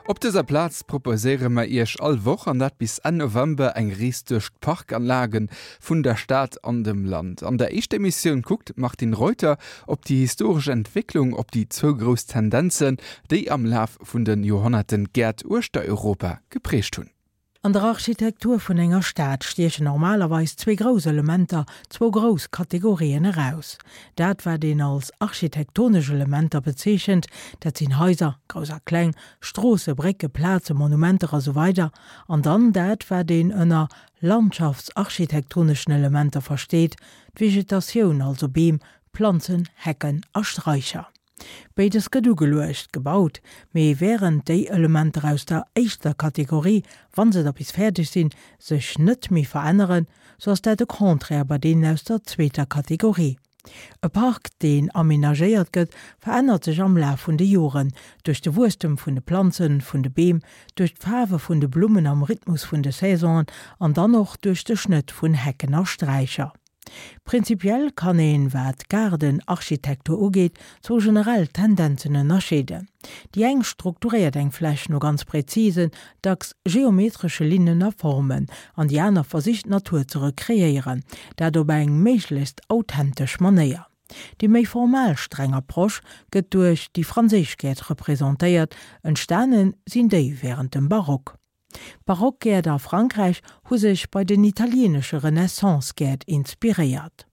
Op dëser Plaz proposéiere mer Iech all Woch, an dat bis Enn November, eng Rees duerch d'Parkanlage vun der Stad an dem Land. An der éischter Emissioun kuckt d'Martine Reuter op déi historesch Entwécklung, op déi zwou grouss Tendenzen, déi am Laf vun de Joerhonnerten d'Gäert uechter Europa geprägt hunn. An der Architektur vun enger Stad stiechen normalerweis zwee grouss Elementer, zwou grouss Kategorien eraus. Dat wat een als architektonesch Elementer bezeechent, dat sinn Haiser, grouss a kleng, Stroosse, Brécke, Plazen, Monumenter a sou weider An dann dat wat een ënner landschaftsarchitektoneschen Elementer versteet, d'Vegetatioun, also Beem, Planzen, Hecken a Straicher. Béides gëtt ugeluecht, gebaut, mee wärend déi Elementer aus der éischter Kategorie, wa se da bis fäerdeg sinn, sech net méi veränneren, sou ass dat de Contraire bei deenen aus der zweeter Kategorie. E Park, deen amenagéiert gëtt, verännert sech am Laf vun de Joren, duerch de Wuesstem vun de Planzen, vun de Beem, duerch d'Faarwe vun de Blummen am Rhythmus vun de Saisonen an dann och duerch de Schnëtt vun Hecken a Straicher. Prinzipiell kann een, wat d'Gaardenarchitektur ugeet, zwou generell Tendenzen ënnerscheeden. Déi eng strukturéiert eng Fläch no ganz präzisen, dacks geometresche Linnen a Formen, an déi aner versicht d'Natur ze rekreéieren, dat op eng méiglechst authentesch Manéier. Déi méi formal streng Approche gëtt duerch déi franséisch Gäert representéiert, entstane sinn déi wärend dem Barock. D'Barockgäert a Frankräich hu sech bei den italieenesche Renaissance-Gäert inspiréiert.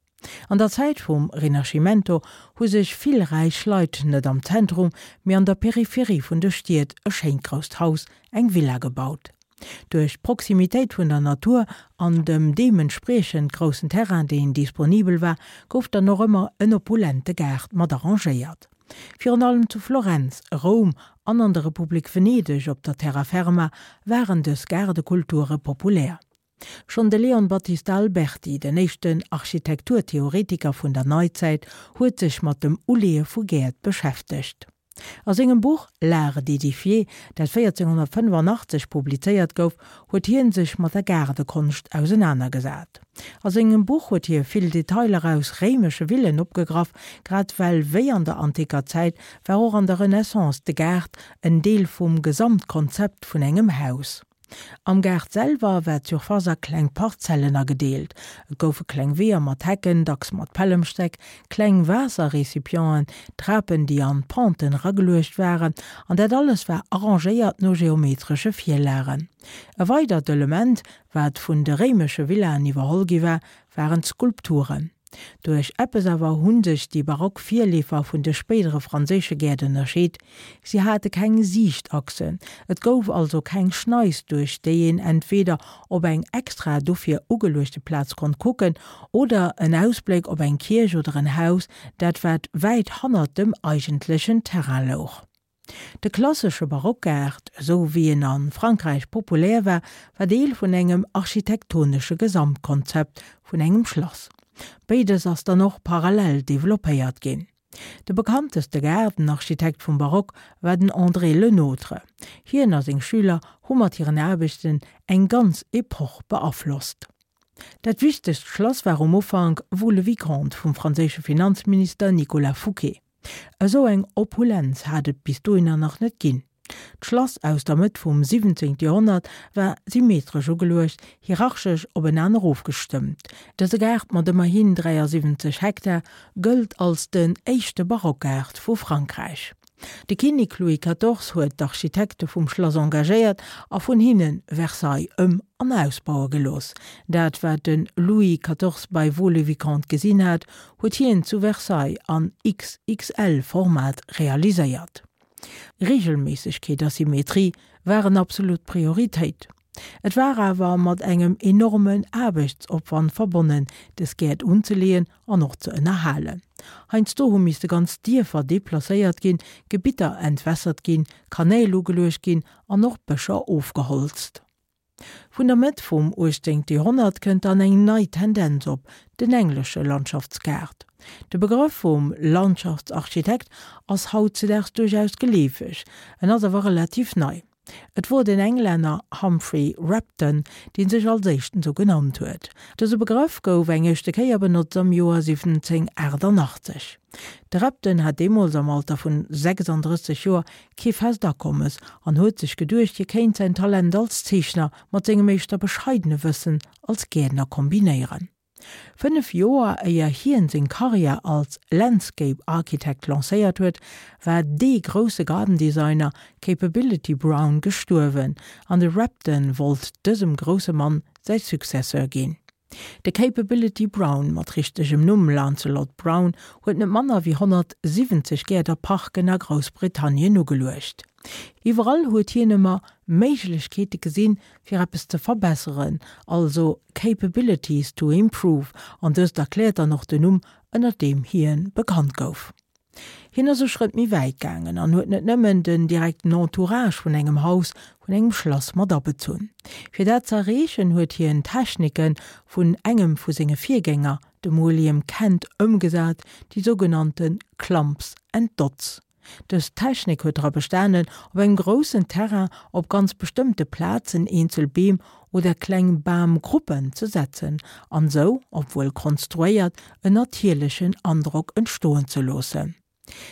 An der Zäit vum Rinascimento hu sech vill räich Leit net am Zentrum, mee an der Peripherie vun de Stied e schéint grousst Haus, eng Villa gebaut. Duerch d'Proximitéit vun der Natur an dem deementspriechend groussen Terrain, deen disponibel war, gouf dann och ëmmer en opulente Gaart mat arrangéiert. Virun allem zu Florenz, Roum an an der Republik Venedeg op der Terra Ferma waren dës Gaardekulture populär. Schonn de Leon Battista Alberti, den éischten Architekturtheoretiker vun der Neizäit, huet sech mat dem Uleeë vu Gäert beschäftegt. A sengem Buch L'art d'édifier, dat 1485 publizéiert gouf, huet hien sech mat der Gaardekonscht ausenanergesat. A sengem Buch huet hie vill Detailer aus réimesche Villen opgegraff, grad well wéi an der anticker Zäit war och an der Renaissance de Gaart en Deel vum Gesamtkonzept vun engem Haus. Am Gaart selwer war d'Surface a kleng Parzellen agedeelt. Et goufe kleng Weeër mat Hecken, dacks mat Pällemstäck, kleng Waasserrecipienten, Trapen déi an d'Penten erageluecht waren, an dat alles war arrangéiert no geometresche Virlagen. E weidert Element, wat vun de réimesche Villaen iwwerholl gi war, waren d'Skulpturen. Duerch eppes awer hu sech déi barock Virleefer vun de spéidere franséische Gäert ënnerscheet, Si hate keng Siichtachsen, et gouf also keng Schneis, duerch déi een entweeder op eng extra dofir ugeluechte Plaz konnt kucken oder en Ausbléck op eng Kierch oder en Haus, dat wat wäit hannert dem eigentlechen Terrain louch. De klassesche Barockgaart, esou wéi en a Frankräich populär war, war Deel vun engem architektonesche Gesamtkonzept vun engem Schlass. Béides ass dann och parallel developpéiert ginn. De bekannteste Gaardenarchitekt vum Barock war den André Le Nôtre. Hien a seng Schüler hu mat hiren Aarbechten eng ganz Epoch beaflosst. Dat wichtegst Schlass war um Ufank Vaux-le-Vicomte vum franséische Finanzminister Nicolas Fouquet. Esou eng Opulenz hat et bis dohinner nach net ginn. D'Schlass aus der Mëtt vum 17. Joerhonnert war symmetresch ugeluecht, hierarchesch openaner ofgestëmmt. Dëse Gaart mat ëmmerhin 73 Hektar gëllt als den éischte Barockgaart vu Frankräich. De Kinnek Louis 14 huet d'Architekte vum Schlass engagéiert a vun hinne Versailles ëm an ausbaue gelooss. Dat wat de Louis 14 bei Vaux-le-Vicomte gesinn hat, huet hien zu Versailles an XXL-Format realiséiert. Reegelméissegkeet a Symmetrie waren absolut Prioritéit. Et war awer mat engem enormen Aarbechtsopwand verbonnen, des Gäert unzeleeën an och ze ënnerhalen. Heiansdo hu misste ganz Dierfer deplacéiert ginn, Gebitter entwässert ginn, Kanäl ugeluecht ginn an och Bëscher ofgeholzt. Vun der Mëtt vum 18. Joerhonnert kënnt dann eng nei Tendenz op, den englesche Landschaftsgaart. De Begrëff vum Landschaftsarchitekt ass hautzedaags duerchaus geleefeg, en ass awer relativ nei. Et wor den Englänner Humphrey Repton, dee sech als éischten sou genannt huet. Dëse Begrëff gouf eng éischte Kéier benotzt am Joer 1788. De Repton hat deemools am Alter vun 36 Joer kee fest Akommes an huet sech geduecht, hie kéint säin Talent als Zeechner mat sengem éischter bescheidene Wëssen als Gäertner kombinéieren. 5 Joer éier hien seng Karriär als Landscape Architect lancéiert huet, war dee grousse Garden Designer Capability Brown gestuerwen an de Repton wollt dësem grousse Mann säi Successeur ginn. De Capability Brown, mat richtegem Numm Lancelot Brown, huet net manner wéi 170 Gäert a Parken a Groussbritannien ugeluecht. Iwwerall huet hien ëmmer Méiglechkeete gesinn, fir eppes ze verbesseren, also capabilities to improve, an dëst erkläert dann och den Numm, ënnert deem hien bekannt gouf. Hien ass e Schrëtt méi wäit gaangen an huet net nëmmen den direkten Entourage vun engem Haus, vun engem Schlass mat abezunn. Fir dat ze erreechen, huet hien Technike vun engem vu senge Virgänger, dem William Kent, ëmgesat, déi sougenannte Clumps and Dots. Dës Technik huet dra bestanen, op engem groussen Terrain op ganz bestëmmte Plazen eenzel Beem oder kleng Bamgruppen ze setzen an sou, obwuel konstruéiert, en natierlechen Androck entstoen ze loossen.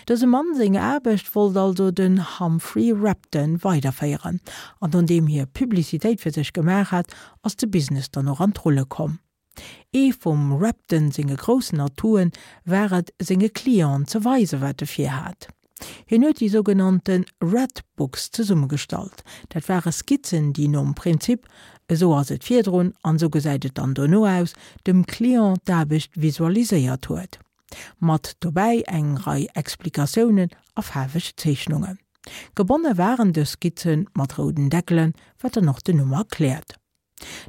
Dësem Mann seng Aarbecht wollt also den Humphrey Repton weiderféieren an nodeem hie Publicitéit fir sech gemaach hat, ass de Business dann och an d'Rulle komm. Ee vum Repton senge groussen Atouen war et, senge Clienten ze weisen, wat e virhat. Hien huet déi sougenannte Red Books zesummegestallt. Dat ware Skizzen, déi nom Prinzip esou ass et virdrun an esou gesäit et dann dono aus, dem Client d'Aarbecht visualiséiert huet. Mat dobäi eng Rei Explikatiounen a faarweg Zeechnungen. Gebonne waren dës Skizze mat rouden Deckelen, wat dann och den Numm erkläert.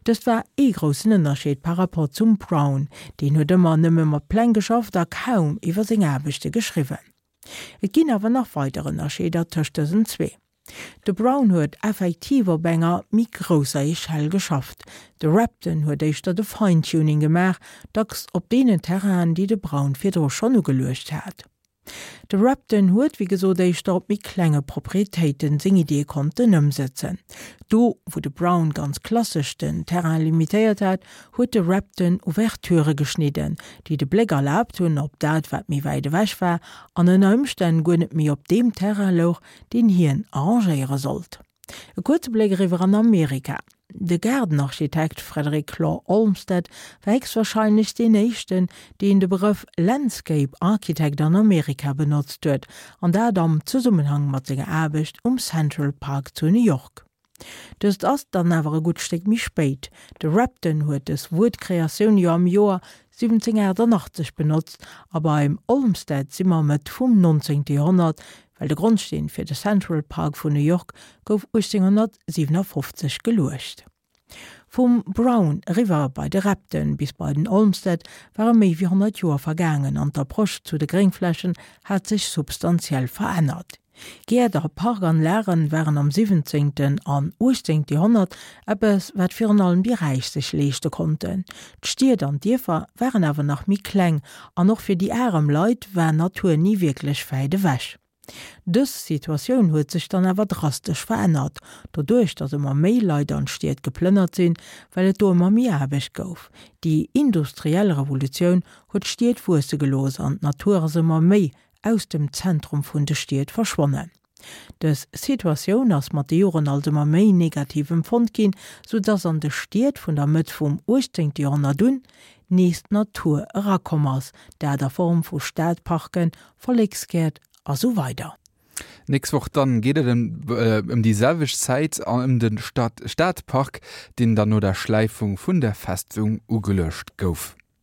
Dëst war ee groussen Ënnerscheed par rapport zum Brown, deen huet ëmmer nëmme mat Pläng geschafft a kaum iwwer seng Aarbechte geschriwwen. Et ginn awer nach weider Ënnerscheeder tëscht dësen zwee. De Brown huet effektiv op enger méi grousser Echelle geschafft, de Repton huet éischter de Fine-Tuning gemaach, dacks op deenen Terrainen, déi de Brown virdru schonn ugeluecht hat. De Repton huet wéi gesot éischter op méi klenge Proprietéiten seng Iddie konnten ëmsëtzen. Do wou de Brown ganz klassesch den Terrain limitéiert hat, huet de Repton Ouverturë geschnidden, déi de Bléck erlaabt hunn op dat wat méi wäit ewech war an ënner Ëmstänn guer net méi op deem Terrain louch, deen hien arrangéiere sollt. E kuerze Bléck eriwwer an Amerika. De Gaardenarchitekt Frederick Law Olmsted war héchstwahrscheinlech deen éischten, deen de Begrëff Landscape Architect an Amerika benotzt huet, an dat am Zesummenhang mat senger Aarbecht um Central Park zu New York. Dëst ass dann awer e gutt Stéck méi spéit. De Repton huet dës Wuertkreatioun jo am Joer 1788 benotzt a beim Olmsted si mer Mëtt vum 19. Joerhonnert, well de Grondsteen fir de Central Park vun New York gouf 1857 geluecht. Vum Brown eriwwer bei de Repton bis bei den Olmsted ware méi wéi 100 Joer vergaangen an d'Approche zu de Gréngflächen hat sech substantiell verännert. Gäert a Parkanlagen waren am 17. an 18. Joerhonnert eppes, wat virun allem déi Räich sech leeschte konnten. D'Stied an d'Dierfer waren awer nach méi kleng an och fir déi arem Leit war Natur ni wierklech wäit ewech. Dës Situatioun huet sech dann awer drastesch verännert, doduerch datt ëmmer méi Leit an d'Stied geplënnert sinn, well et do ëmmer méi Aarbecht gouf. Déi industriell Revolutioun huet d'Stied wuesse gelooss an d'Natur ass ëmmer méi aus dem Zentrum vun de Stied verschwonnen. Dës Situatioun ass mat de Joren als ëmmer méi negativ empfonnt ginn, sou dass an de Stied vun der Mëtt vum 18. Joerhonnert un nees d'Natur erakomm ass, dat a Form vu Stadparken, Volleksgäert a sou weider. Nächst Woch dann geet et ëm déi selwecht Zäit an ëm de Stadpark, deen dann no der Schläifung vun der Festung ugeluecht gouf.